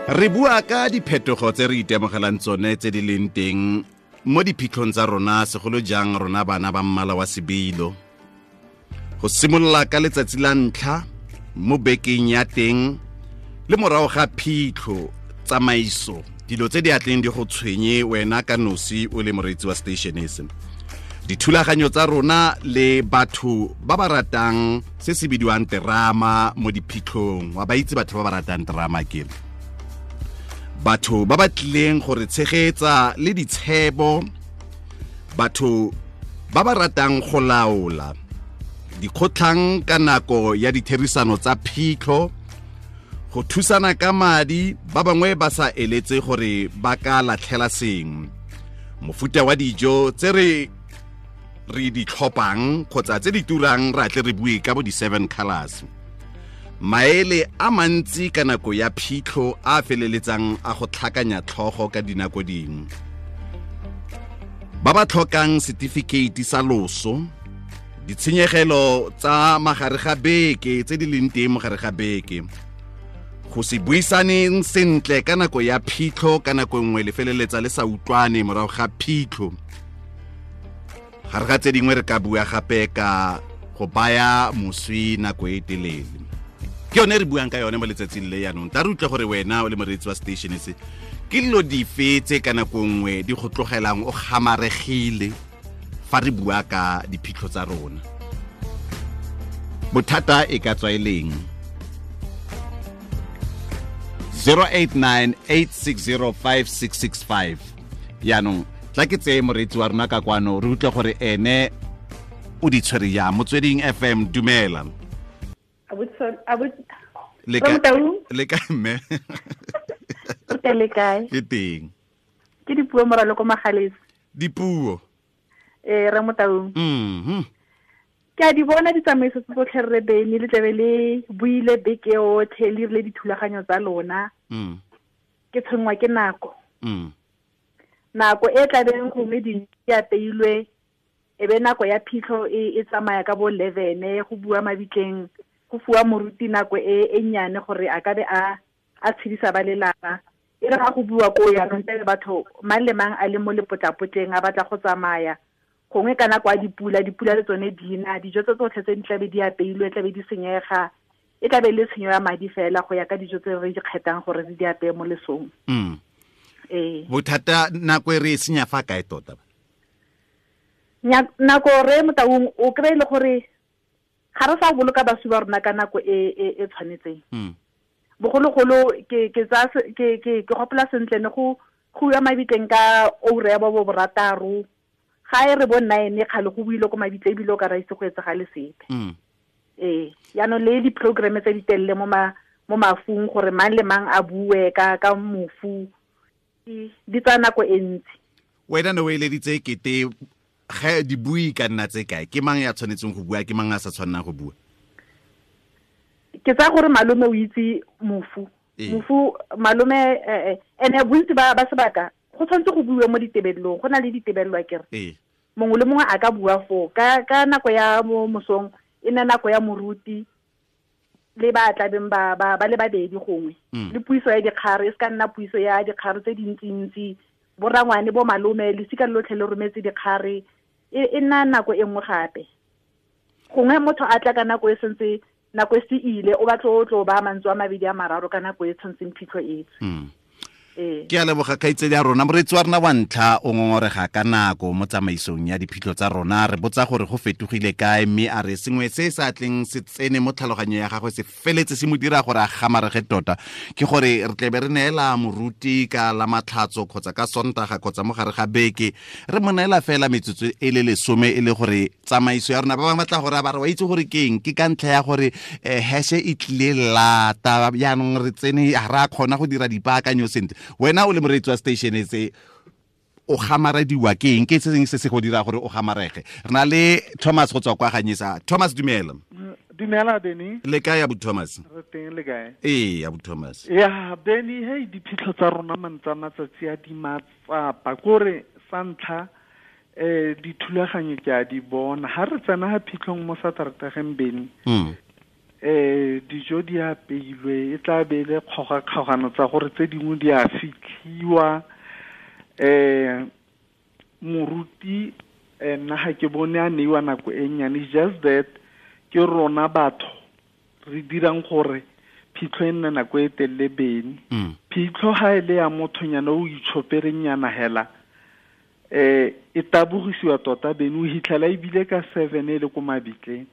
Re bua ka diphetogo tse re itemogelang tsone tse di leng teng mo diphitlhong tsa rona, segolo jang rona bana ba mmala wa sebilo. Go simolola ka letsatsi la ntlha mo bekeng ya teng le morago ga phitlho, tsamaiso, dilo tse di atleng di go tshwenye wena ka nosi o le moreetsi wa station se. Dithulaganyo tsa rona le batho ba ba ratang se se bidiwang terama mo diphitlhong, wa ba itse batho ba ba ratang terama ke batho ba ba tlileng gore tshegetsa le ditshebo, batho ba ba ratang go laola dikgotlhang ka nako ya ditherisano tsa phitlho, go thusana ka madi, ba bangwe ba sa eletse gore ba ka latlhela sengwe, mofuta wa dijo tse re di tlhopang kgotsa tse di turang, ra tle re bue ka bo di-7 colors, maele a mantsi ka nako ya phitlho a feleletsang a go tlhakanya tlhogo ka dinako dingwe, ba ba tlhokang setifikeiti sa loso, ditshenyegelo tsa magare ga beke tse di leng teng mogare ga beke, go se buisaneng sentle ka nako ya phitlho, ka nako nngwe le feleletsa le sa utlwane morago ga phitlho. Gare ga tse dingwe re ka bua gape ka go baya moswi nako e telele. Ke yone re buang ka yone mo letsatsing le yaanong. Tla re utlwe gore wena o le moreetsi wa station se, ke dilo dife tse ka nako nngwe di go tlogelang o gamaregile fa re bua ka diphitlho tsa rona. Bothata e ka tswa e leng? 0898605665. Yaanong tla ke tseye moreetsi wa rona ka kwano re utlwe gore ene o di tshwere jang. Motsweding FM, dumela. Le kae mme? Le kae? Ke teng. Ke dipuo moralo ko Magalesi. Dipuo. Re Motaung. Ke a di bona ditsamaiso tse tsotlhe re bene le tlebe le buile beke yotlhe le rile dithulaganyo tsa lona. Ke tshwenngwa ke nako. Nako e tlabeng gongwe di apeilwe e be nako ya phitlho e tsamaya ka bo 11 go bua mabitleng, go fuwa moruti nako e nnyane gore a ka be a tshedisa ba lelapa. E re ga go bua ko yaanong tse batho mang le mang a le mo lepotlapotleng a batla go tsamaya, gongwe ka nako ya dipula, dipula le tsone di na, dijo tse tsotlhe tse di tlabe di apeilwe tlabe di senyega, e tlabe le tshenyo ya madi fela go ya ka dijo tse re di kgethang gore re di apeye mo lesong. Bothata nako e re e senya fa kae tota? Nako re Motaung o kry-e le gore ga re sa boloka baswi ba rona ka nako e tshwanetseng. Bogologolo ke gopola sentle ne go ya mabitleng ka oura ya bo borataro, ga e re bo 9 kgale go buile ko mabitle ebile o ka ra itse go etsagale sepe. Yaanong le di-programme tse di telele mo mafung gore mang le mang a bue ka mofu, di tsaya nako e ntsi. Wena ne o eleditse kete ge di bui ka nna tse kae? Ke mang ya tshwanetseng go bua, ke mang a sa tshwannang go bua? Ke tsaya gore malome o itse mofu. Mofu malome ene bontsi ba sebaka go tshwanetse go buiwe mo ditebelelong, go na le ditebelelo akere. Mongwe le mongwe a ka bua foo ka nako ya mo mosong e nne nako ya moruti le ba tlabeng ba le babedi gongwe. Le puiso ya dikgare e se ka nna puiso ya dikgare tse dintsintsi, borangwane bo malome lesika lotlhe le rometse dikgare, e nna nako e nngwe gape. Gongwe motho a tla ka nako e sentse nako e se ile, o batla o tlo ba mantswe a mabedi a mararo ka nako e tshwantseng phitlho e tswe. Ke a leboga kgaitsedi ya rona. Moreetsi wa rona wa ntlha o ngongorega ka nako mo tsamaisong ya diphitlho tsa rona. Re botsa gore go fetogile kae, mme a re sengwe se sa tleng se tsene mo tlhaloganyong ya gagwe se feletse se mo dira gore a gamarege tota, ke gore re tlebe re neela moruti ka la matlhatso kgotsa ka Sontaga kgotsa mo gare ga beke, re mo neela fela metsotso e le 10 e le gore tsamaiso ya rona ba bangwe ba tla gore ba re wa itse gore ke eng, ke ka ntlha ya gore hashe e tlile lata jaanong re tsene ga re a kgona go dira dipaakanyo sentle. Wena o le moreetsi wa station se o gamarediwa ke eng, ke se sengwe se se go dira gore o gamarege? Re na le Thomas go tswa kwa Ganyesa. Thomas, dumela. Dumela Benny. Le kae abu Thomas? Re teng, le kae? Ee, abu Thomas. Ya Benny, hey diphitlho tsa rona mantsa matsatsi a di matsapa kore sa ntlha dithulaganyo ke a di bona. Ha re tsena ha phitlhong mo Satertageng Benny. Dijo di apeilwe, e tla be le kgogakgogano tsa gore tse dingwe di a fitlhiwa. Moruti nna ga ke bone a neiwa nako e nnyane, just that ke rona batho re dirang gore phitlho e nne nako e telele bene. Phitlho ga e le ya mothonyana o itshoperenyana hela, e tabogisiwa tota bene, o hitlhela ebile ka 7 e le ko mabitleng.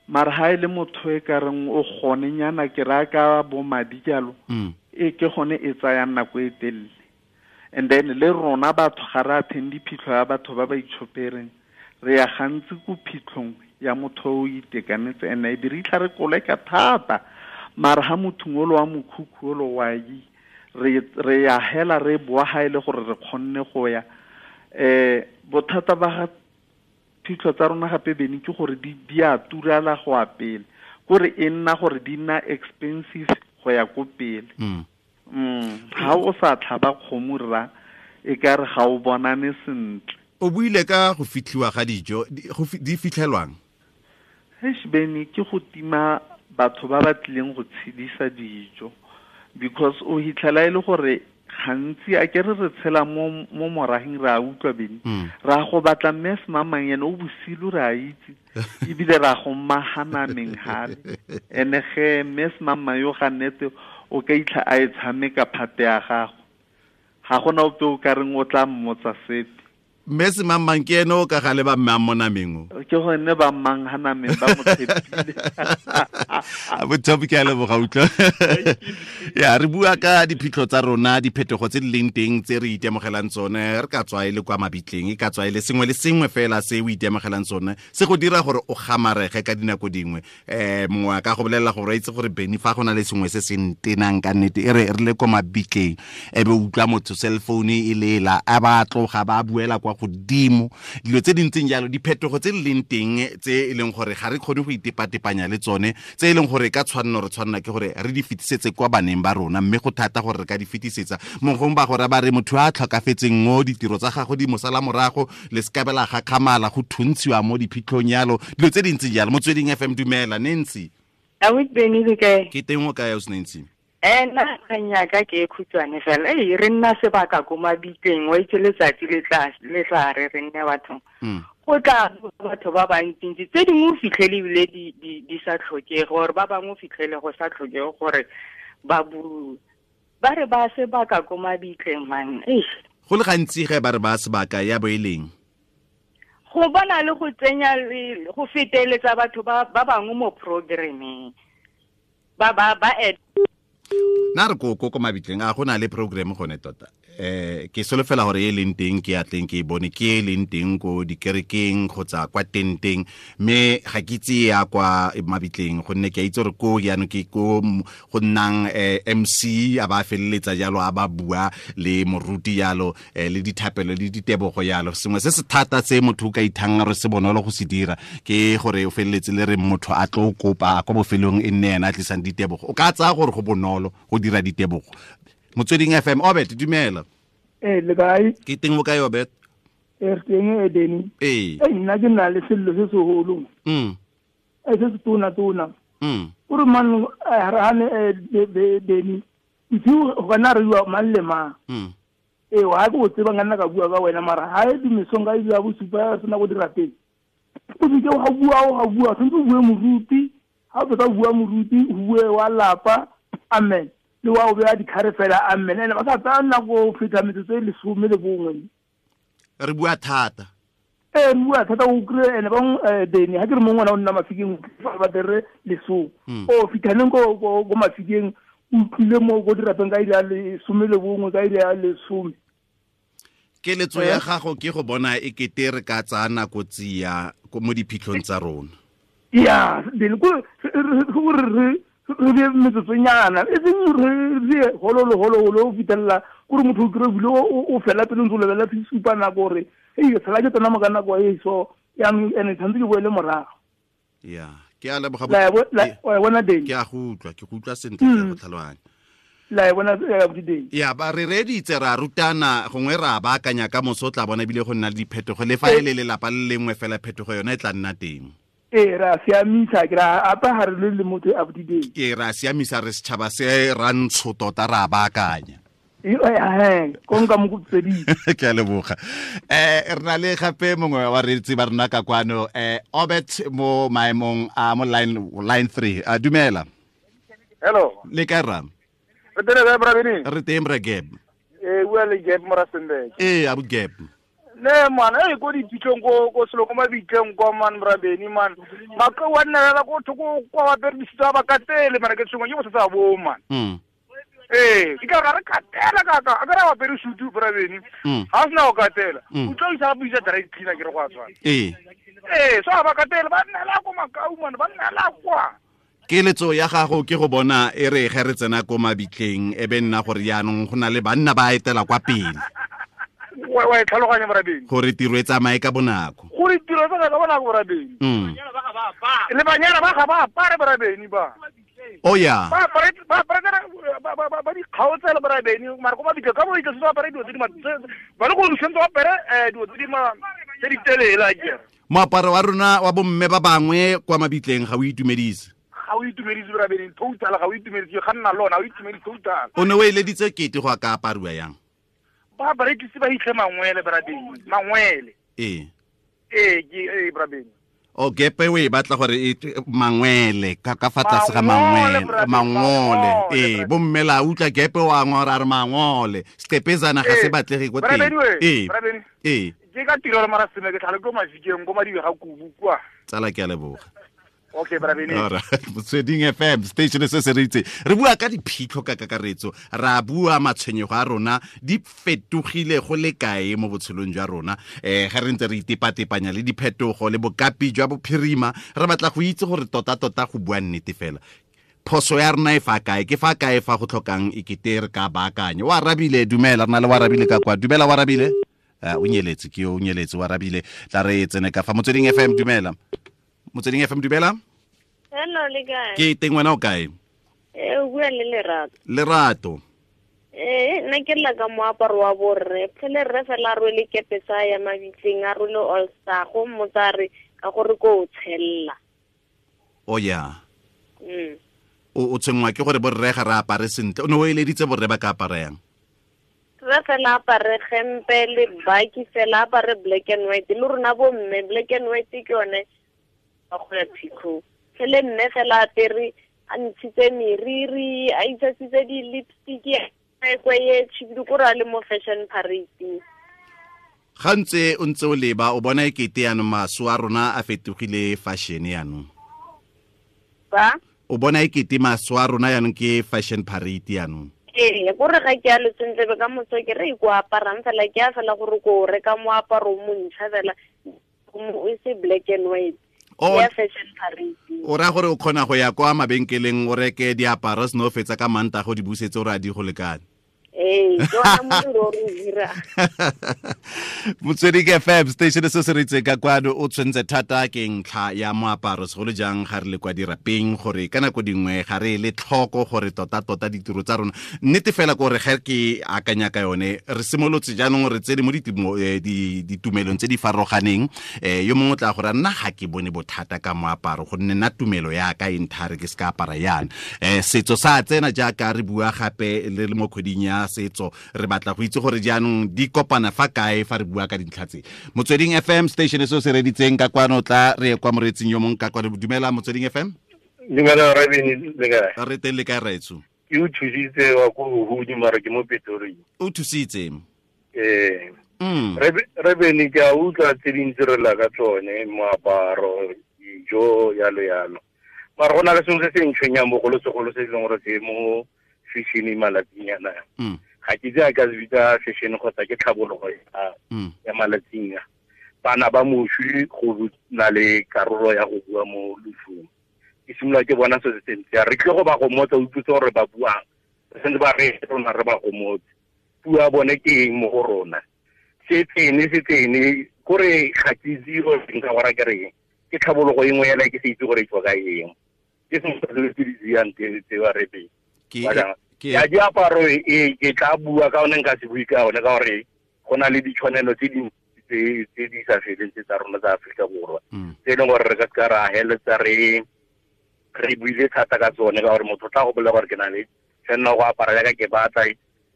Mara ha e le motho e ka reng o gonenyana ke raya ka bo madi jalo, e ke gone e tsayang nako e telele. And then le rona batho ga re attend phitlho ya batho ba ba itshopereng, re ya gantsi ko phitlhong ya motho o itekanetse, and e be re itlha re koleka thata. Mara ha motho ngolo wa mokhukhu olo wa yi, re ya hela re boa ha ile gore re kgonne go ya. Bothata ba ga phitlho tsa rona gape bene ke gore di a turala go a pele, kore e nna gore di nna expensive go ya ko pele. Ha o sa tlhaba kgomo rra, e ka re ga o bonane sentle. O buile ka go fitlhiwa ga dijo, di fitlhelwang? Eish bene, ke go tima batho ba ba tlileng go tshedisa dijo, because o hitlhela e le gore gantsi a ke re tshela mo moraheng, re a utlwa bene. Ra go batla mme semamang ene o bosilu, re a itse, ebile ra go mahanameng hale. Ene ge mme semamang yo ga nnete o ka itlha a e tshameka phate ya gago, ga gona ope o ka reng o tla mmotsa sepe. Mme semamang ke ene o ka gale ba mme a mo nameng o? Ke gone ba mmang ha nameng ba mo tshepile. A bothopi ke a leboga utlwa. Ya, re bua ka diphitlho tsa rona, diphetogo tse di leng teng tse re itemogelang tsone, re ka tswa e le kwa mabitleng, e ka tswa e le sengwe le sengwe fela se o itemogelang tsone, se go dira gore o gamarege ka dinako dingwe. Mongwe a ka go bolelela gore a itse gore Benny fa go na le sengwe se se ntenang ka nnete, e re le kwa mabitleng, e be o utlwa motho cell phone e lela, a ba tloga ba buela kwa godimo, dilo tse di ntseng jalo, diphetogo tse di leng teng tse e leng gore ga re kgone go itepatepanya le tsone, tse e leng gore ka tshwanno re tshwanna ke gore re di fetisetse kwa baneng ba rona, mme go thata gore re ka di fetisetsa. Mongwe ba gore ba re motho a tlhokafetseng mo ditiro tsa gagwe di mosala morago, le sekabela ga khamala go thuntshiwa mo diphitlhong yalo, dilo tse di ntseng jalo. Motsweding FM, dumela Nancy. A o Benny le kae? Ke teng o kae o Nancy? Nna kgang ka ke e khutshwane fela. Re nna sebaka ko mabitleng, wa itse letsatsi le tla re re nne bathong. Go tla batho ba bantsintsi, tse dingwe o fitlhele ebile di sa tlhokege, gore ba bangwe o fitlhele go sa tlhokege gore ba bue. Ba re ba sebaka ko mabitleng man. Go le gantsi ge ba re ba sebaka ya bo e leng? Go bona le go tsenya go feteletsa batho ba bangwe mo programmeng. Ba Na re ko mabitleng a go na le program gone tota. Ke solofela gore e leng teng ke atleng ke e bone, ke e leng teng ko dikerekeng kgotsa kwa tenteng, mme ga ke itse ya kwa mabitleng gonne ke a itse gore ko jaanong ke ko go nnang MC a ba feleletsa jalo, a ba bua le moruti jalo, le dithapelo le ditebogo jalo. Sengwe se se thata se motho o ka ithang re se bonolo go se dira ke gore o feleletse le re motho a tlo kopa kwa bofelong e nne ena a tlisang ditebogo. O ka tsaya gore go bonolo go dira ditebogo. Motsweding FM, Obet, dumela. Le kae? Ke teng o kae, Obet? Re teng e Benny. Nna ke na le sello se seholo. Se se tona. O re man re hane Benny. Ntho go kana re bua mang le mang. Wa go tseba nna ka bua ka wena, mara ha e dimesong ka ile ya bosupa sena go dira pele. O se ke wa bua, tshwanetse o bue moruti, ha o fetsa o bua moruti, o bue wa lapa. Amen. Le wa o beya dikhare fela, amen. Ene ba sa tsaya nako go feta metsotso e 11. Re bua thata. Re bua thata o kry-e ene bang Benny, ha ke re mongwe ngwana o nna Mafikeng, ba tere lesome. O fitlhaneng ko Mafikeng, o utlwile mo ko dirapeng ka iri ya 11, ka iri ya 10. Keletso ya gago ke go bona e kete re ka tsaya nako tsia mo diphitlhong tsa rona. Ya, Benny, ko re re be metsotsonyana, e seng re hololo o fitlhelela kore motho o kry-e bile o fela pele ntse o lebelela supa nako gore ei sala ke tsena mo ka nako e so jaanong ene tshwanetse ke boele morago. Ya, ke a leboga. La bona Benny. Ke a go utlwa, ke go utlwa sentle, ke a go tlhaloganya. La bona Benny. Ya, ba re reditse ra rutana, gongwe ra baakanya ka moso tla bona ebile go nna le diphetogo, le fa e le lelapa le lengwe fela phetogo yone e tla nna teng. Ee, ra siamisa ke ra apa ha re le motho a bodibeng. Ke ra siamisa re setšhaba se ra ntsho tota ra baakanya. Konka mo go tsedi. Ke a leboga. Re na le gape mongwe wa reetsi ba rona ka kwano, Obert mo maemong a mo line 3. A dumela. Hello. Le kae rra? Re teng kae, bra Benny? Re teng bra Gab. Bua le Gab mo Rustenburg. Ee, abu Gab. Ne man, ko diphitlhong ko selo ko mabitleng kwa man bra Benny man. Maka wa nna la ko thoko kwa ba perisitsa ba katele mara ke tshwengwa ke bothata bo man. Ke ka re katela ka ka a ka ra ba perisutu bra Benny. Ha sna o katela. O tlo isa buisa dry cleaner ke re go a tshwana. Ee. So ba katele ba nna la ko makau man, ba nna la kwa. Keletso ya gago ke go bona e re ge re tsena ko mabitleng e be nna gore jaanong go na le banna ba etela kwa pele. Wa e tlhaloganya bra Benny. Gore tiro e tsamaye ka bonako. Gore tiro e tsamaye ka bonako bra Benny. Le banyana ba ga ba apare bra Benny ba. Oh ya. Ba apare ba di kgaotsela bra Benny mara ko mabitleng ka bo itse ba apare dilo tse di ba le go sentse ba apare dilo tse di ma tse di telele a kere. Moaparo wa rona wa bomme ba bangwe kwa mabitleng ga o itumedise. Ga o itumedise bra Benny total, ga o itumedise ga nna lona, ga o itumedise total. O ne o eleditse kete go ka apariwa yang? Ba barekisi ba hitlhe mangwele bra Benny, mangwele. Ee. Ee, ke bra Benny. O gepe we batla gore e mangwele ka fa tlase ga mangwele, mangole. Ee, bomme la utlwa gepe wa ngora re mangole. Seqepezana ga se batlege ko teng. Ee. Ee. Ke ka tiro le mara seme ke tlhale ko mafikeng ko madibe ga kubu kwa. Tsala ke a leboga. Okay, bra Benny. All right. Motsweding FM station se se ritse. Re bua ka diphitlho ka kakaretso. Ra bua matshwenyego a rona di fetogile go le kae mo botshelong jwa rona. Ga re ntse re itepatepanya le diphetogo le bokapi jwa bophirima, re batla go itse gore tota-tota go bua nnete fela. Phoso ya rona e fa kae? Ke fa kae fa go tlhokang e kete re ka baakanya? Wa arabile, dumela, re na le wa arabile ka kwa. Dumela wa arabile. O nyeletse ke o nyeletse wa arabile. Tla re tsene ka fa Motsweding FM, dumela. Motsweding FM, dumela. Hello, le kae? Ke teng, wena o kae? O bua le Lerato. Lerato. Nna ke lla ka moaparo wa borre. Phele rre fela a rwele kepe sa ya mabitleng, a rwele all star, go mmotsa re ka gore ko o tshella. O ya. O tshwenngwa ke gore borre ga re apare sentle. O ne o eleditse borre ba ka apara yang? Rre fela apare gempe le baki fela, apare black and white. Le rona bo mme black and white ke yone ba go ya phitlhong. Phele mme fela apere a ntshitse meriri, a itshasitse di-lipstick, a kweye tšhibidu ko re a le mo fashion parade. Ga ntse o ntse o leba o bona e kete yanong maso a rona a fetogile fashion yanong. Ba? O bona e kete maso a rona yanong ke fashion parade yanong. Ee, gore ga ke a le sentle be ka moso ke re ko aparang fela, ke a fela gore ko reka moaparo o montšha fela, o se black and white. Ya fashion parade. O ra gore o kgona go ya kwa mabenkeleng o reke diaparo seno fetsa ka manta go di busetse o re a di go lekane. Ee, ke ona modiro o re dira. Motsweding FM station se se ritse ka kwano o tshwentse thata ke ntlha ya moaparo segolo jang ga re le kwa dirapeng gore ka nako dingwe ga re le tlhoko gore tota-tota ditiro tsa rona nnete fela gore ge ke akanya ka yone re simolotse jaanong re tsene mo ditumelong tse di farologaneng. Yo mongwe o tla gore nna ga ke bone bothata ka moaparo gonne nna tumelo ya ka e nthare ke se ka apara yana. Setso sa tsena jaaka re bua gape le mo kgweding ya setso re batla go itse gore jaanong di kopana fa kae fa re bua ka dintlha tse. Motsweding FM station se se reditseng ka kwano tla re kwa moretsing yo mongwe ka kwano. Dumela Motsweding FM. Dumela Rabini, le kae? Re teng, le kae raetso? Ke o thusitse wa ko Huhudi mara ke mo Pretoria. O thusitse? Ee. Rabini ke a utlwa tse dintsi re lla ka tsone, moaparo, dijo, yalo yalo. Mara go na le sengwe se se ntshwenyang bogolosegolo se e leng gore se mo fashion malatsing ana. Ga ke itse a ka se bitsa fashion kgotsa ke tlhabologo ya malatsing a. Bana ba moswi go na le karolo ya go bua mo losong. Ke simolola ke bona se se sentle. Re tle go ba gomotsa, o utlwise gore ba buang. Re sentse ba re rona re ba gomotse. Puo ya bone ke eng mo go rona? Se tsene kore ga ke itse gore nka go raya ke reng. Ke tlhabologo e nngwe yela ke se itse gore e tswa ka eng. Ke sengwe sa dilo tse di tseyang tse ba re pele. Ya diaparo e ke tla bua ka one nka se bue ka one ka gore go na le ditshwanelo tse dintsi tse di sa feleng tse tsa rona tsa Aforika Borwa tse e leng gore re ka seka ra heletsa re buile thata ka tsone ka gore motho o tla go bolela gore ke na le tshwanela go apara jaaka ke batla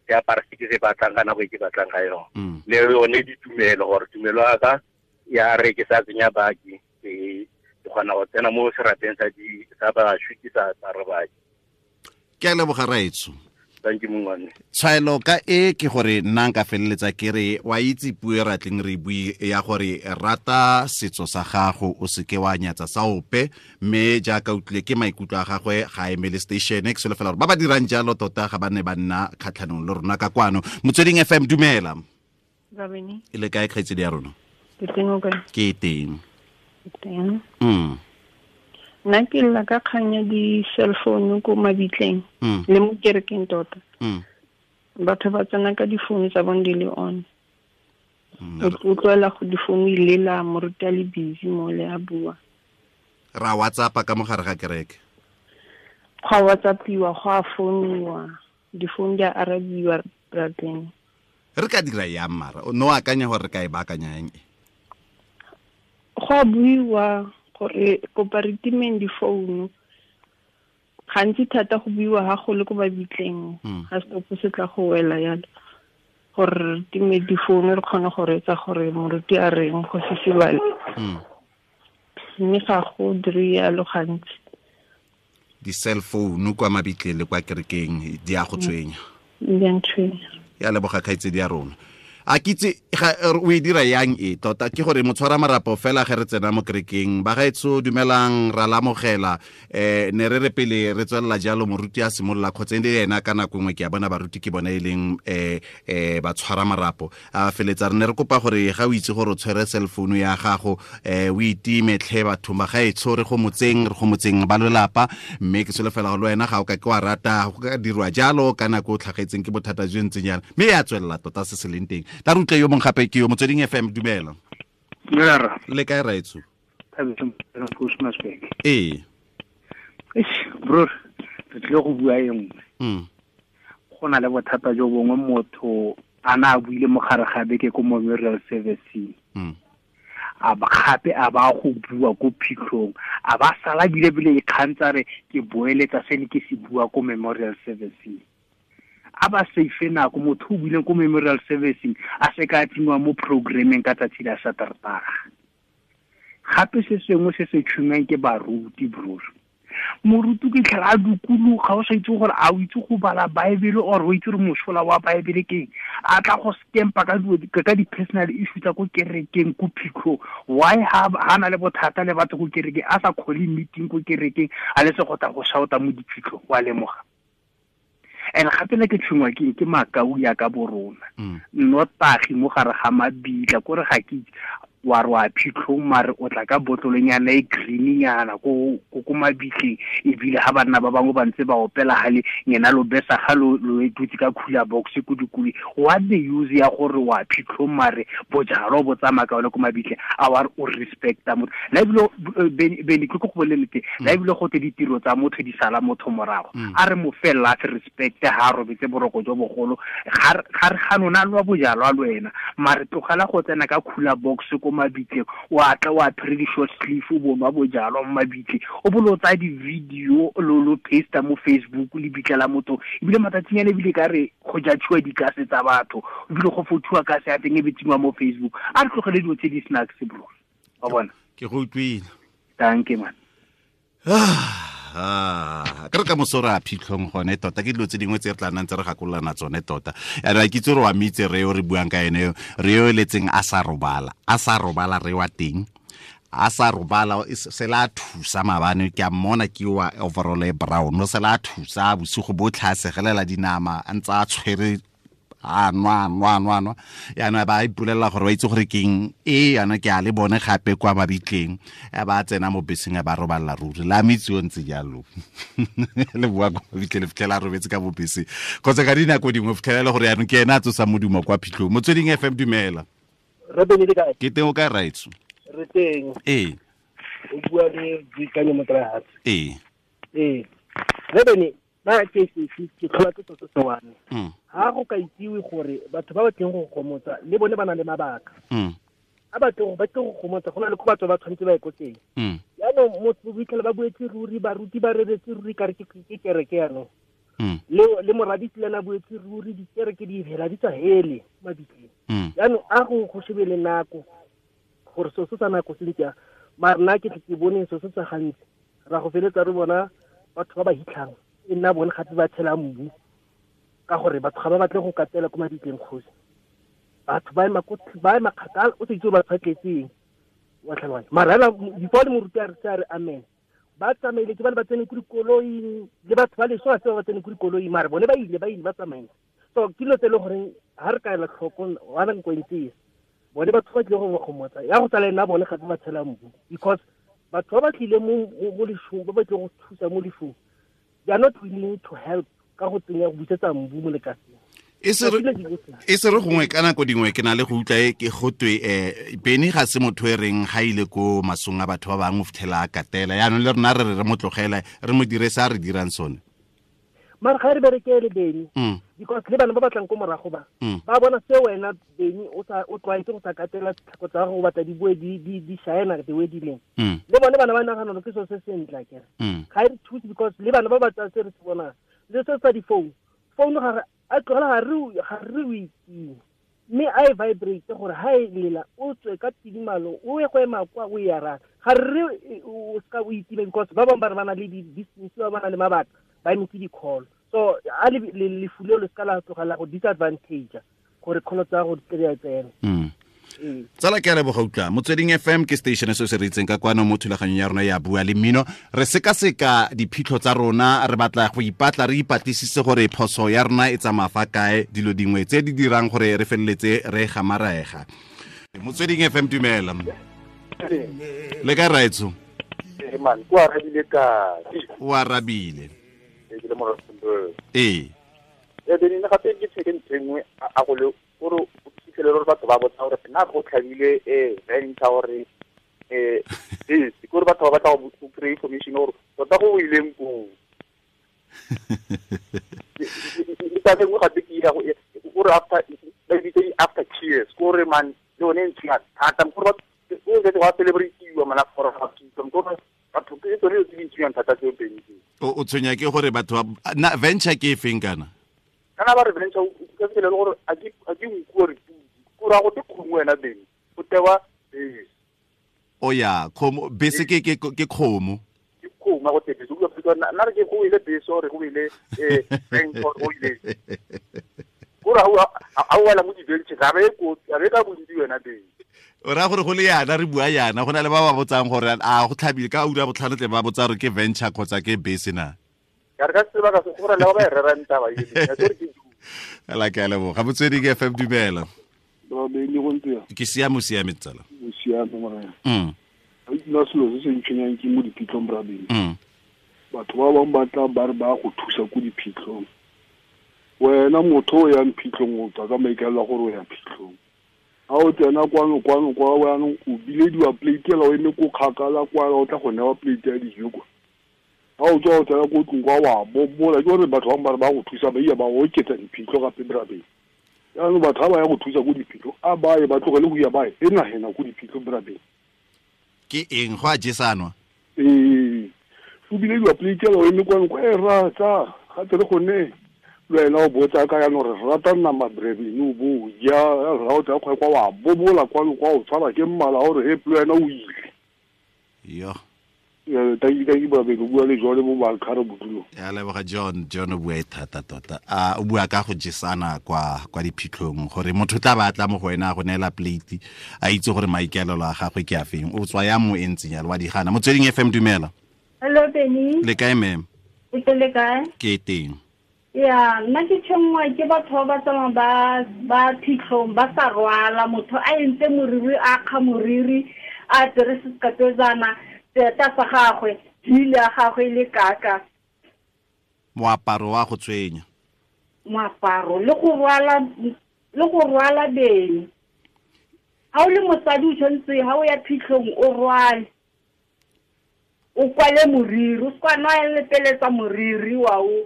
ke apara se ke se batlang ka nako e ke batlang ka yone le yone ditumelo gore tumelo ya ka ya re ke sa tsenya baki ke kgona go tsena mo serapeng sa bašwi ke sa apare baki. Ke a leboga raetsho. Thank you mongwane. Tshwaelo ka e ke gore nna nka feleletsa ke re wa itse puo e ratleng re bue ya gore rata setso sa gago o seke wa nyatsa sa ope, mme jaaka utlwile ke maikutlo a gagwe ga emele station ke solofela gore ba ba dirang jalo tota ga ba ne ba nna kgatlhanong le rona ka kwano. Motsweding FM, dumela. Rabini. E le kae kgaitsedi ya rona? Ke teng o kae? Ke teng. Ke teng. Nna ke lla ka kgang ya di-cell phone ko mabitleng le mo kerekeng tota. Batho ba tsena ka difounu tsa bone di le on. O utlwela go difounu e lela, moruti a le busy mo le a bua. Ra WhatsApp-a ka mogare ga kereke. Go a WhatsApp-iwa, go a founiwa, difounu di a arabiwa rateng. Re ka dira yang mara? No akanya gore re ka e baakanya yang e? Go a buiwa gore kopa re timeng difounu. Gantsi thata go buiwa ga go le ko mabitleng, ga setopo se tla go wela yalo, gore re time difounu re kgone go reetsa gore moruti a reng go sesibale. Mme ga go dire yalo gantsi. Di-cell phone kwa mabitleng le kwa kerekeng di a go tshwenya. Di a ntshwenya. Ya leboga kgaitsedi ya rona. A kitse o e dira yang e tota ke gore motshwara marapo fela ge re tsena mo kerekeng ba gaetsho dumelang ra lamogela ne re re pele re tswelela jalo moruti a simolola kgotsa e ena ka nako nngwe ke a bona baruti ke bona e leng ba tshwara marapo a feletsa re ne re kopa gore ga o itse gore o tshwere cell phone ya gago o itime tlhe batho ba gaetsho re go motseng ba lelapa mme ke solofela gore le wena ga o ka ke wa rata go ka dirwa jalo ka nako o tlhagetseng ke bothata jo ntseng jalo mme ya tswelela tota se se leng teng. Ta re utlwe yo mongwe gape ke yo Motsweding FM, dumela. Dumela. Le kae raetsho? Ee. Bro, re tlile go bua e nngwe. Go na le bothata jo bongwe motho a na a buile mo gare ga beke ko memorial service. A ba gape a ba go bua ko phitlhong, a ba sala bile bile ikgantsa re ke boeletsa se ne ke se bua ko memorial service. A ba safe nako motho o buileng ko memorial servicing a se ka tsenngwa mo programming ka tsatsi la Saterdag. Gape se sengwe se se tshwenyang ke baruti bro. Moruti ke tlhela a dukuluga o sa itse gore a o itse go bala Bible or o itse gore mosola wa Bible ke eng. A tla go scampa ka di-personal issue tsa ko kerekeng ko phitlhong. Why ha na le bothata le batho ko kerekeng a sa call meeting ko kerekeng a le se go tla go shouta mo diphitlhong wa lemoga. And gape le ke tshwengwa ke makau ya ka borona. Nnotagi mo gare ga mabitla kore ga ke wa re wa phitlhong mare o tla ka botlolonyana e greennyana ko mabitleng ebile ga banna ba bangwe ba ntse ba opela gale ngena lo besa ga lo dutse ka cooler box ko dikole. What the use ya gore wa phitlhong mare bojalo bo tsamaya ka one ko mabitleng a wa re o respecta motho. La ebile Bene ke go bolelete la ebile go te ditiro tsa motho di sala motho morago. A re mo fela se respect ha robetse boroko jo bogolo ga re ga nona lwa bojalo a lwena mare tlogela go tsena ka cooler box ko mabitleng wa tla wa apere di-short sleeve o bonwa bojalwa mo mabitleng o bolo tsa di-video lo paste mo Facebook le bitla la motho ebile matsatsinyana ebile ka re go judgiwa dikase tsa batho ebile go fothiwa kase ya teng e be tsenngwa mo Facebook. A re tlogele dilo tse di snacks bro. Wa bona ke go utlwile. Thank you man. Ka re ka moso re a phitlhong gone tota ke dilo tse dingwe tse re tla nnang tse re gakololana tsone tota. Yaanong ke itse gore wa mitse re yo re buang ka ene re yo eletseng a sa robala re wa teng a sa robala se la thusa maabane ke a mmona ke wa overall e brown o se la thusa bosigo botlhe a segelela dinama a ntse a tshwere a nwa yaanong ba ipolelela gore ba itse gore keng e yana ke a le bone gape kwa mabitleng ba tsena mo beseng ba robalela ruri la metsi o ntse jalo le bua kwa mabitleng le fitlhela a robetse ka mo beseng kgotsa ka dinako dingwe fitlhela le gore yaanong ke ena a tsosa modumo kwa phitlhong. Motsweding FM, dumela. Ke teng o kae raetsho? Re teng. Ee. O bua le Boikanyo Motlahatse. Ee. Ee. Rebene ba ke tlhola ke tsotso tsone. Ha go ka itsiwe gore batho ba ba tleng go gomotsa le bone ba na le mabaka. A batho ba tle go gomotsa go na le ko batho ba tshwanetse ba ye ko teng. Jaanong motho bo ba buetse ruri, baruti ba reretse ruri kare ke kereke jaanong. Le moradisi le ena buetse ruri, dikereke di hela di tswa hele mabitleng. Jaanong a go shebe le nako gore seo se sa nako se ntse mara nna ke tle ke bone seo se sa gantsi ra go feletsa re bona batho ba ba hitlhang e nna bone gape ba tshela mbu ka gore batho ga ba batle go katela ko mabitleng kgosi. Batho ba ema kgakala o se itse gore batho ba tletseng wa tlhaloganya. Mara hela before le moruti a re se a re amen ba tsamaile ke ba le ba tsene ko dikoloing le batho ba leso ga se ba tsene ko dikoloing mara bone ba ile ba tsamaile. So ke dilo tse e le goreng ga re ka ela tlhoko wa nako e ntse bone batho ba tlile go gomotsa ya go tsala nna bone gape ba tshela mbu because batho ba ba tlile mo lefung ba ba tlile go thusa mo lefung they are not willing to help ka go tsenya go busetsa mbu mo lekaseng. E se re gongwe ka nako dingwe ke na le go utlwa e ke gotwe Benny ga se motho e reng ga ile ko masong a batho ba bangwe o fitlhela a katela yaanong le rona re re mo tlogela re mo dire sa re dirang sone. Mara ga re berekele Benny because le bana ba batlang ko morago ba ba bona se wena Benny o tlwaetse go sa katela tlhako tsa gago batla di boe di shine the way di leng. Le bone bana ba nagana gore ke selo se sentle akere. Ga e re thuse because le bana ba ba tsaya se re se bonang le se sa di-phone phone ga a tlogela ga re o itime mme a e vibrate gore ha e lela o tswe ka tidimalo o ye go ema kwa o e araba ga re o seka o itime because ba bangwe ba re ba na le di-distance ba ba na le mabaka ba emetse di-call. So a lefu leo le seka la tlogela go disadvantage gore call tsa go di tle di tsene. Tsala ke a leboga utlwa Motsweding FM ke station se se re itseng ka kwano mo thulaganyong ya rona ya Bua le Mmino. Re sekaseka diphitlho tsa rona, re batla go ipatla re ipatlisise gore phoso ya rona e tsamaya fa kae, dilo dingwe tse di dirang gore re feleletse re gamaraega. Motsweding FM dumela. Le kae raetso? Man, o arabile ka. O arabile. Ke le mo Rustenburg. Ee. E bene gape ke tsheke ntho e nngwe a go le gore o fitlhele gore batho ba botsa gore nna go tlhabile venture gore ke gore batho ba batla go kry information gore tota go ileng koo. Le taba e nngwe gape ke ya gore after ba bitse di-after tears gore man le yone e ntshwenya thata gore o setse wa celebrate-iwa mana gore ga kitso gore batho ke tsone dilo tse di ntshwenyang thata tseo pedi. O tshwenya ke gore batho na venture ke e feng kana? Kana ba re venture o ka fitlhela gore a ke nku gore ko ra go te kgomo wena Benny o tewa bese. O ya kgomo bese ke kgomo. Ke kgomo go te bese o ka nna re ke go ile bese gore go ile venture go ile. Gore a o wela mo di-venture ga be ko ga be ka bontsi wena Benny. O raya gore go le yana re bua yana go na le ba ba botsang gore a go tlhabile ka ura botlhano tle ba botsa gore ke venture kgotsa ke bese na. Ka re ka sebaka se gore le ba ba e rerang taba e ke ke la ke a leboga. Motsweding FM dumela. Ke siame o siame tsala. O siame morena. Nna selo se se ntshwenyang ke mo diphitlhong bra Benny. Batho ba bangwe ba tla ba re ba go thusa ko diphitlhong. Wena motho o yang phitlhong o tswa ka maikaelelo a gore o ya phitlhong. Ha o tsena kwano kwano kwa jaanong o bilediwa plate ela o eme ko kgakala kwa o tla go newa plate ya dijo kwa. Ha o tswa o tsena ko tlong kwa wa bobola ke gore batho bangwe ba re ba go thusa ba iya ba oketsa diphitlho gape bra Benny. Jaanong batho ha ba ya go thusa ko diphitlho a ba ye ba tlogele go ya ba e nagena ko diphitlho bra Benny. Ke eng go a jesanwa? Ee, o bilediwa plate ela o eme kwano kwa e ratsa gape re gone le wena o botsa ka jaanong re rata nama bra Benny o bo ja ra o tla kwa wa bobola kwano kwa o tshwara ke mmala gore he le wena o ile. Yo. Thank you bra Benny o bua le jone mo Malkhare bodulo. Ya leboga John, John o bua e thata tota. A o bua ka go jesana kwa diphitlhong gore motho tla ba tla mo go wena go neela plate a itse gore maikaelelo a gagwe ke a feng. O tswa ya mo e ntseng yalo wa di gana. Motsweding FM dumela. Hello Benny. Le kae ma'am? Ke le kae? Ke teng. Ya, nna ke tshwenngwa ke batho ba ba tsamayang ba phitlhong ba sa rwala motho a entse moriri a kga moriri a apere sekapetsana seeta sa gagwe hile ya gagwe le kaka. Moaparo wa go tshwenya. Moaparo le go rwala Benny. Ha o le mosadi o tshwanetse ha o ya phitlhong o rwale. O kwale moriri, o se ka nwa lepeletsa moriri wa o.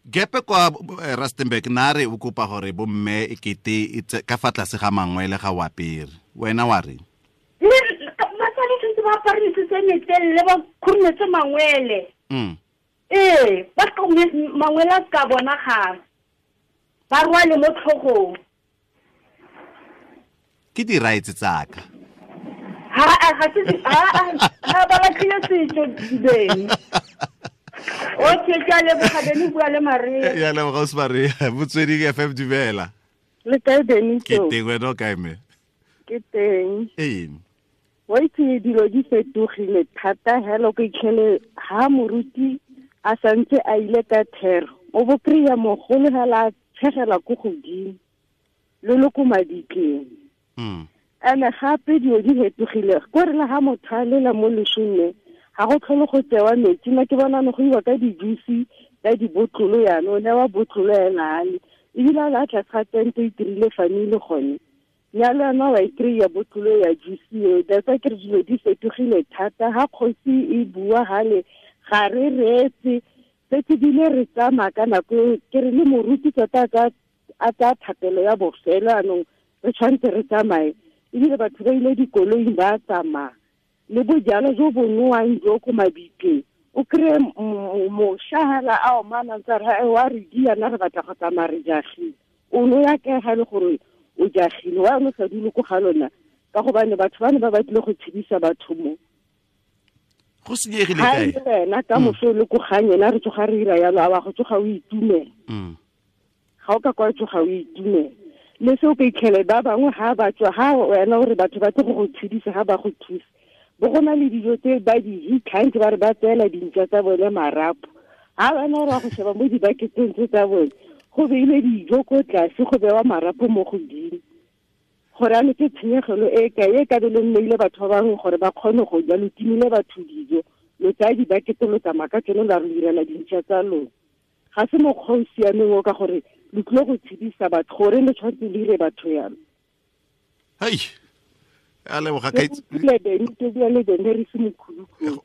Gepe kwa Rustenburg nare o kopa gore bo mme ekete ka fa tlase ga mangwele ga wa apere. Wena wa re? Le basadi tshwanetse ba apare mesese e metelele ba khurumetse mangwele. Ba mangwele a ka bonagala. Ba rwale mo tlhogong. Ke di rights tsaka. Ha ba latlhile setso beng. Okay, ke a leboga Beni, bua le Maria. Ya leboga o Maria, Motsweding FM dumela. Le kae Beni? Ke teng, wena o kae mme? Ke teng. Ee. Wa itse dilo di fetogile thata hela o ka itlhele ha moruti a santse a ile ka thero. O bo kry-a mogolo hela a tshegela ko godimo le le ko maditleng. Ene gape dilo di fetogile ko re le ha motho a lela mo lesong ga go tlhole go tsewa metsi nna ke bona go iwa ka di-juice ka dibotlolo yana o newa botlolo ena ale ebile a la tlase ga tente e itirile family gone nyalo yana wa e kry-a botlolo ya juice eo. That's why ke re dilo di fetogile thata. Ha kgosi e bua gale ga re reetse setse bile re tsamaya ka nako e ke re le moruti tota a tsaya thapelo ya bofelo anong re tshwanetse re tsamaye ebile batho ba ile dikoloing ba tsamaya le bojalo jo bo nowang jo ko mabitleng o kry-e mošwa hela a omana ntse re wa re diana re batla go tsamaya re jagile o no ya kae ga e le gore o jagile wa o sa dule ko ga lona ka gobane batho ba ne ba batlile go tshedisa batho mo go senyegile kae wena ka moso le ko gang ena re tsoga re ira yalo a wa go tsoga o itumela ga o ka kwa tsoga o itumela le se o ka itlhele ba bangwe ga ba tswa ga wena o re batho ba tle go go tshedisa ga ba go thusa bo go na le dijo tse ba di hitlhang ba re ba tseela dintša tsa bone marapo ga wena o re wa go sheba mo dibaketeng tse tsa bone go beile dijo ko tlase go bewa marapo mo godimo gore ano ke tshenyegelo e kae e ka be le nneile batho ba bangwe gore ba kgone go ja lo timile batho dijo lo tsaya dibakete lo tsamaya ka tsone la re direla dintša tsa lona ga se mokgwa o siameng o ka gore lo tlile go tshedisa batho gore le tshwanetse le dire batho yalo. Hei a leboga ka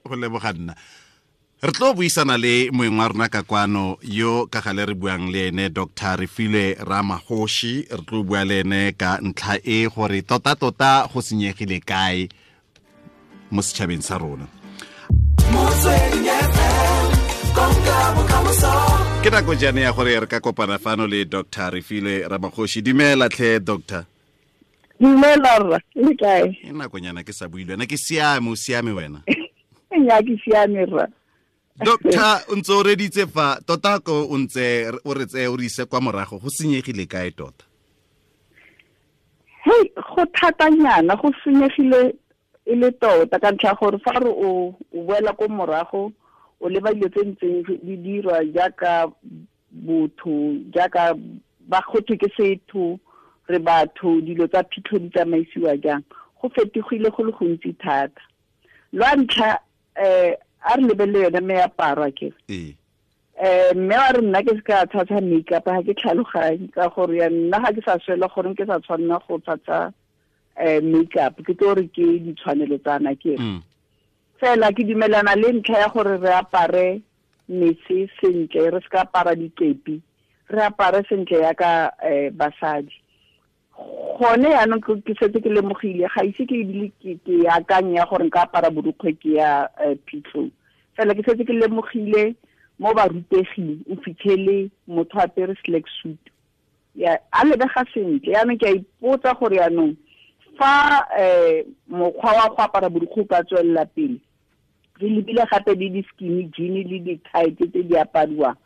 go leboga nna re tlo buisana le moeng wa rona ka kwano yo ka gale re buang le ene Dr. Refilwe Ramagoshi re tlo bua le ene ka ntlha e gore tota-tota go senyegile kae mo setšhabeng sa rona. Ke nako jaana ya gore re ka kopana fano le Dr. Refilwe Ramagoshi. Dumela tlhe doctor. Dumela rra, le kae? E nakonyana ke sa bue le wena, ke siame, o siame wena? Nya ke siame rra. Doctor, o ntse o reditse fa tota ko o ntse o re tseye o re ise kwa morago go senyegile kae tota? Hei, go thatanyana go senyegile e le tota ka ntlha gore fa re o boela ko morago o leba dilo tse ntseng di dirwa jaaka botho jaaka ba gotwe ke setho re batho dilo tsa phitlho di tsamaisiwa jang go fetogile go le gontsi thata. Lwa ntlha a re lebelele yone meaparo a kere mme wa re nna ke se ka tshasa makeup ga ke tlhaloganye ka gore ya nna ga ke sa swela gore ke sa tshwanela go tshasa makeup ke tlo re ke ditshwanelo tsana ke fela ke dumelana le ntlha ya gore re apare mese sentle re se ka apara dikepi re apare sentle yaka basadi. Gone yaanong ke setse ke lemogile ga ise ke ebile ke akanya gore nka apara borukgwe ke ya phitlhong fela ke setse ke lemogile mo baruteging o fitlhele motho apere slack suit ya a lebega sentle. Yaanong ke a ipotsa gore yaanong fa mokgwa wa go apara borukgwe o ka tswelela pele re lebile gape le di-skinny jean le di-tight tse di apariwang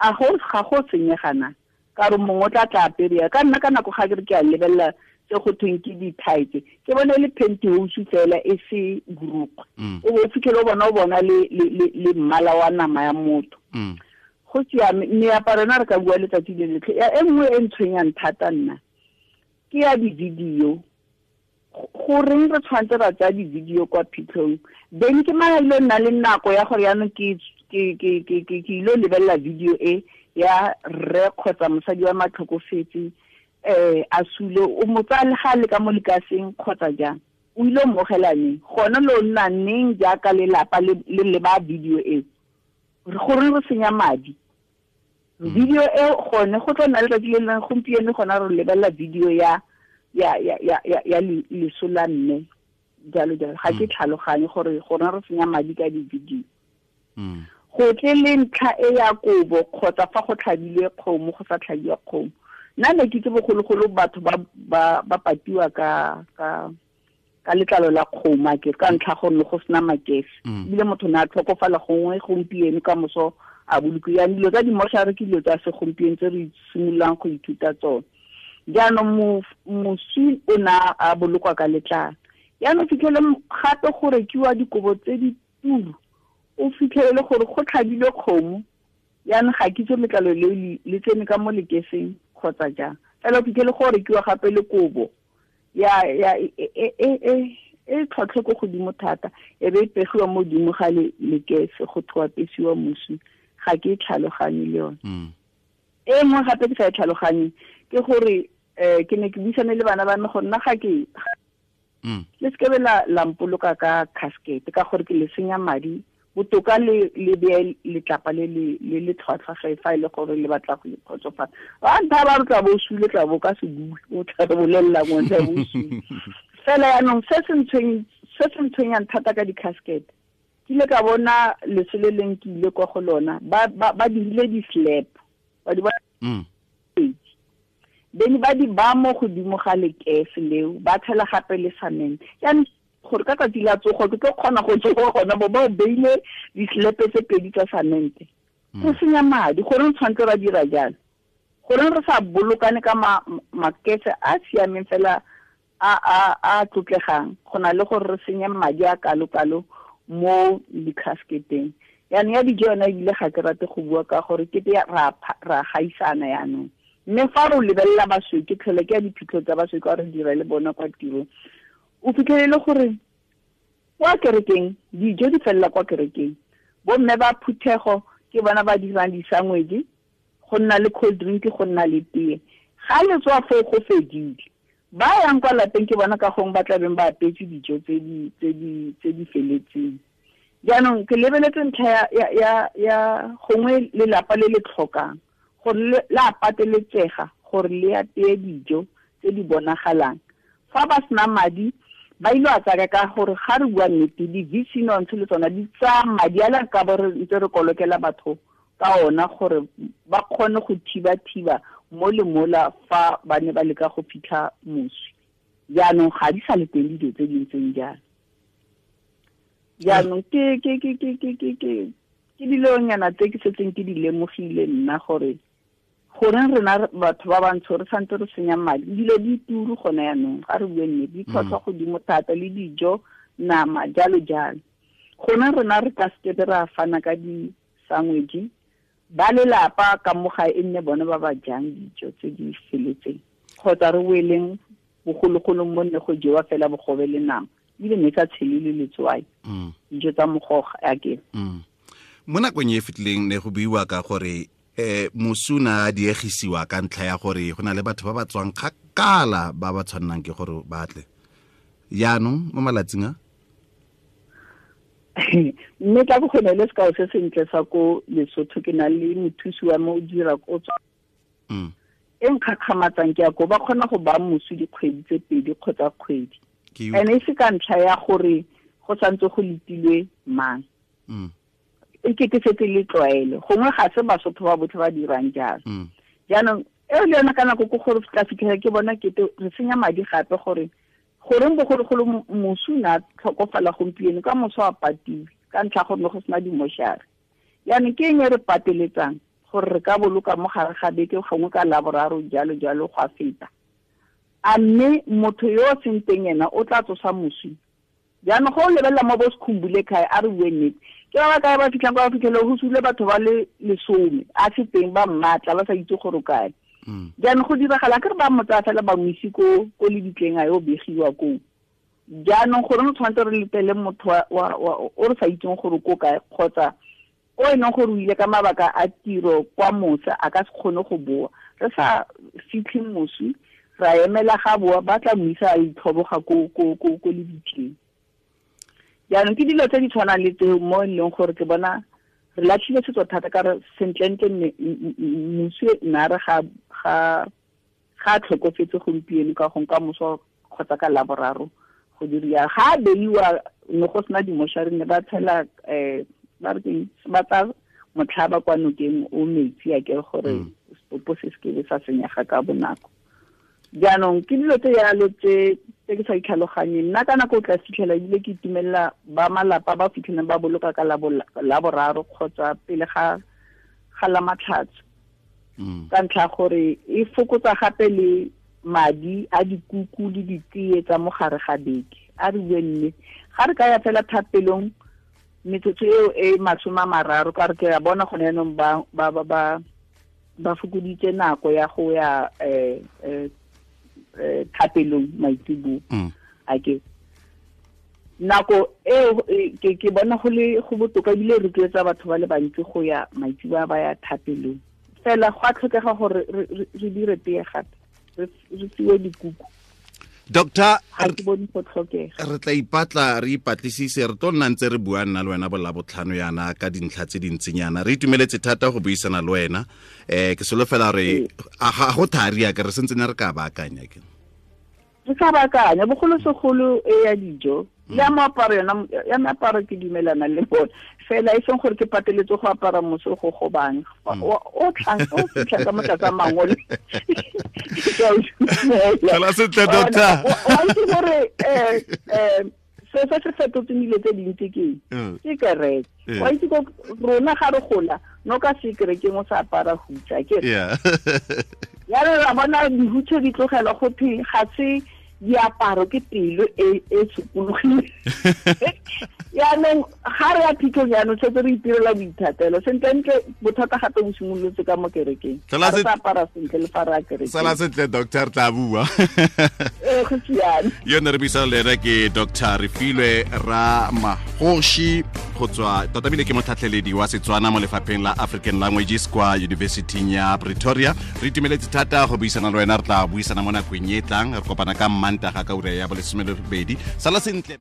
a ga go senyegana ka re mongwe o tla tla aperea ka nna ka nako ga ke re ke a lebelela tse go thweng ke di-tight ke bone le pantyhose fela e se borukgwe o bo fitlhele o bona le mmala wa nama ya motho. Go siame meaparo yona re ka bua letsatsi le letlhe. E nngwe e ntshwenyang thata nna ke ya di-video. Goreng re tshwanetse ra tsaya di-video kwa phitlhong then ke mang a ile nna le nako ya gore yaanong ke ile lebelela video e ya rre kgotsa mosadi wa matlhokofetse a sule o mo tsaya le ga le ka mo lekaseng kgotsa jang o ile o mmogelaneng gone lo nna neng jaaka lelapa le leba video e gore re senya madi. Video e gone go tla nna letsatsi le leng gompieno gona re lebelela video ya ya ya ya ya ya leso la mme jalo jalo. Ga ke tlhaloganye gore gona re senya madi ka di-video. Go tle le ntlha e ya kobo kgotsa fa go tlhabilwe kgomo go sa tlhabiwa kgomo. Nna ne ke itse bogologolo batho ba patiwa ka ka letlalo la kgomo a ke ka ntlha gore go sena makese. Ebile motho ne a tlhokofala gongwe gompieno ka moso a bolokiwa. Dilo tsa dimošare ke dilo tsa segompieno tse re simololang go ithuta tsone. Jaanong moswi o ne a bolokwa ka letlalo. Jaanong fitlhele gape go rekiwa dikobo tse di turu, o fitlhelele gore go tlhabilwe kgomo. Jaanong ga ke itse letlalo leo le tsene ka mo lekeseng kgotsa jang. Fela o fitlhele go rekiwa gape le kobo ya ya e tlhotlhe ko godimo thata, e be e pegiwa mo godimo ga lekese go thoa pesiwa moswi. Ga ke tlhaloganye le yone. E nngwe gape ke sa e tlhaloganye ke gore ke ne ke buisane le bana ba me go nna ga ke le sekebe la mpoloka ka casket ka gore ke le senya madi. Botoka le beye letlapa le le tlhwatlhwa ga fa e le gore le batla go ikgotsofatsa. Ba ntha ba re tla bo sule tla bo ka se bue, o tla re bolelela ngwe tla bo sule. Fela yaanong se se ntshwenyang thata ka di-casket, ke ile ka bona leso le leng ke ile kwa go lona ba dirile di-slab ba di bene ba di ba mo godimo ga lekese leo ba tshela gape le cement. Jaanong gore ka tsatsi la tsogo ke tlo kgona go tsoga gona bo ba o beile di-slab tse pedi tsa cement. Go senya madi. Goreng tshwanetse ra dira jalo? Goreng re sa bolokane ka makese a siameng fela a tlotlegang go na le gore re senye madi a kalo-kalo mo di-casketeng. Yaanong ya dijo yona ebile ga ke rate go bua ka gore kete ra gaisana yaanong. Mme fa re lebelela basweu, ke tlhole ke ya diphitlho tsa basweu ka re dira le bona kwa tirong, o fitlhelele gore kwa kerekeng dijo di felela kwa kerekeng. Bomme ba phuthego ke bona ba dirang di-sandwich, go nna le cold drink, go nna le tee. Ga le tswa foo go fedile. Ba yang kwa lapeng ke bona ka gongwe ba tlabeng ba apetse dijo tse di feletseng. Jaanong ke lebeletse ntlha ya gongwe lelapa le le tlhokang gore la pateletsega gore le apeye dijo tse di bonagalang. Fa ba sena madi ba ile a tsaya ka gore ga re bua nnete di-VC nontshe le tsona di tsaya madi a le ka bo re ntse re kolokela batho ka ona gore ba kgone go thiba-thiba mo le mola fa ba ne ba leka go fitlha moswi. Jaanong ga di sa le teng dilo tse di ntseng jalo. Jaanong ke dilonyana tse ke setseng ke di lemogile nna gore goreng rena batho ba bantsho re santse re senya madi. Dilo di turu gone yaanong, ga re bue nnete, di tlhotlhwa godimo thata le dijo, nama, jalo jalo. Gone rena re ka sekebe ra fana ka di-sandwich, ba lelapa ka mo gae e nne bone ba ba jang dijo tse di feletseng, kgotsa re boeleng bogologolong mo nne go jewa fela bogobe le nama, ebile ne sa tshele le letswai, dijo tsa mogoga ake. Mo nakong e fetileng ne go buiwa ka gore moswi na diegisiwa ka ntlha ya gore go na le batho ba ba tswang kgakala ba ba tshwannang ke gore ba tle. Jaanong mo malatsing a mme tla bo gone le sekao se sentle sa ko Lesotho, ke na le mothusi wa me o dira ko tswa. E nkgakgamatsang ke ya ko ba kgona go ba moswi dikgwedi tse pedi kgotsa kgwedi. Ene e se ka ntlha ya gore go santse go letilwe mang. E ke setse le tlwaelo. Gongwe ga se Basotho ba botlhe ba dirang jalo. Jaanong eo le yona ka nako ke gore tla fitlhela ke bona kete re senya madi gape gore goreng bogologolo moswi na tlhokofala gompieno ka moso a patiwe ka ntlha gore ne go sena dimošare. Jaanong ke eng e re pateletsang gore re ka boloka mo gare ga beke gongwe ka laboraro jalo jalo go a feta. A mme motho yo o seng teng ena o tla tsosa moswi. Jaanong go o lebelela mo bo Sekhumbule kae, a re bue nnete, ke ba ba kae ba fitlhang kwa ba fitlhele go sule batho ba le 10 a se teng ba mmatla ba sa itse gore kae. Jaanong go diragala ke re ba mo tsaya fela ba mo ise ko lebitleng a yo begiwa koo. Jaanong gore re tshwanetse re letele motho o re sa itseng gore ko kae kgotsa o e leng gore o ile ka mabaka a tiro kwa mose a ka se kgone go boa. Re sa fitlhe moswi ra emela ga boa ba tla mo isa a itlhoboga ko lebitleng. Jaanong ke dilo tse di tshwanang le tseo mo e leng gore ke bona Re latlhile setso thata ka re sentlentle moswi nna re ga ga tlhokofetse gompieno ka gong ka moso kgotsa ka laboraro go diriwa ga beiwa ne go sena dimošari ne ba tshela ba re keng ba tsa motlhaba kwa nokeng o metsi a ke gore setopo se se ke sa senyega ka bonako. Jaanong ke dilo tse yalo tse ke sa itlhaloganyeng. Nna ka nako o tla fitlhela ebile ke itumelela ba malapa ba fitlhelang ba boloka ka laboraro kgotsa pele ga la matlhatso. Ka ntlha gore e fokotsa gape le madi a dikuku le ditee tsa mo gare ga beke. A re bue mme ga re ka ya fela thapelong metsotso eo e 30 ka re ke a bona gone jaanong ba fokoditse nako ya go ya thapelong maitseboa. A ke nako eo ke bona go le go botoka ebile rotloetsa batho ba le bantsi go ya maitseboa ba ya thapelong. Fela go a tlhokega gore re dire tee gape re fiwe dikuku. Doctor, re tla ipatla re ipatlisise re tlo nna ntse re bua nna le wena bolabotlhano yana ka dintlha tse dintsinyana. Re itumeletse thata go buisana le wena. Ke solofela re ga go thari ya ke re sentse ne re ka baakanya ke. Re ka baakanya bogolosegolo e ya dijo le ya moaparo yona ya meaparo ke dumelana le bone fela e seng gore ke pateletse go apara moso go gobang o tlang o fitlha ka motlatsa mangole. Fela sentle doctor. Wa itse gore se se fetotseng dilo tse dintsi ke kereke. Wa itse ko rona ga re gola no ka se kerekeng o sa apara hutsa ke. Ya re ra bona dihutshe di tlogelwa go phe ga se diaparo ke pelo e sokologile. Yaanong ga re ya phitlhong jaanong setse re itirela boithatelo sentlentle bothata gape bo simolotse ka mo kerekeng. Ga re sa apara sentle le fa re ya kerekeng. Sala sentle doctor, tla bua. Go siame. Yone re buisana le ena ke Dr. Refilwe Ramagoshi go tswa tota bile ke motlhatlheledi wa Setswana mo lefapheng la African Languages kwa University ya Pretoria. Re itumeletse thata go buisana le wena, re tla buisana mo nakong e tlang. Re kopana ka Mantaga ka ura ya 12. Sala sentle.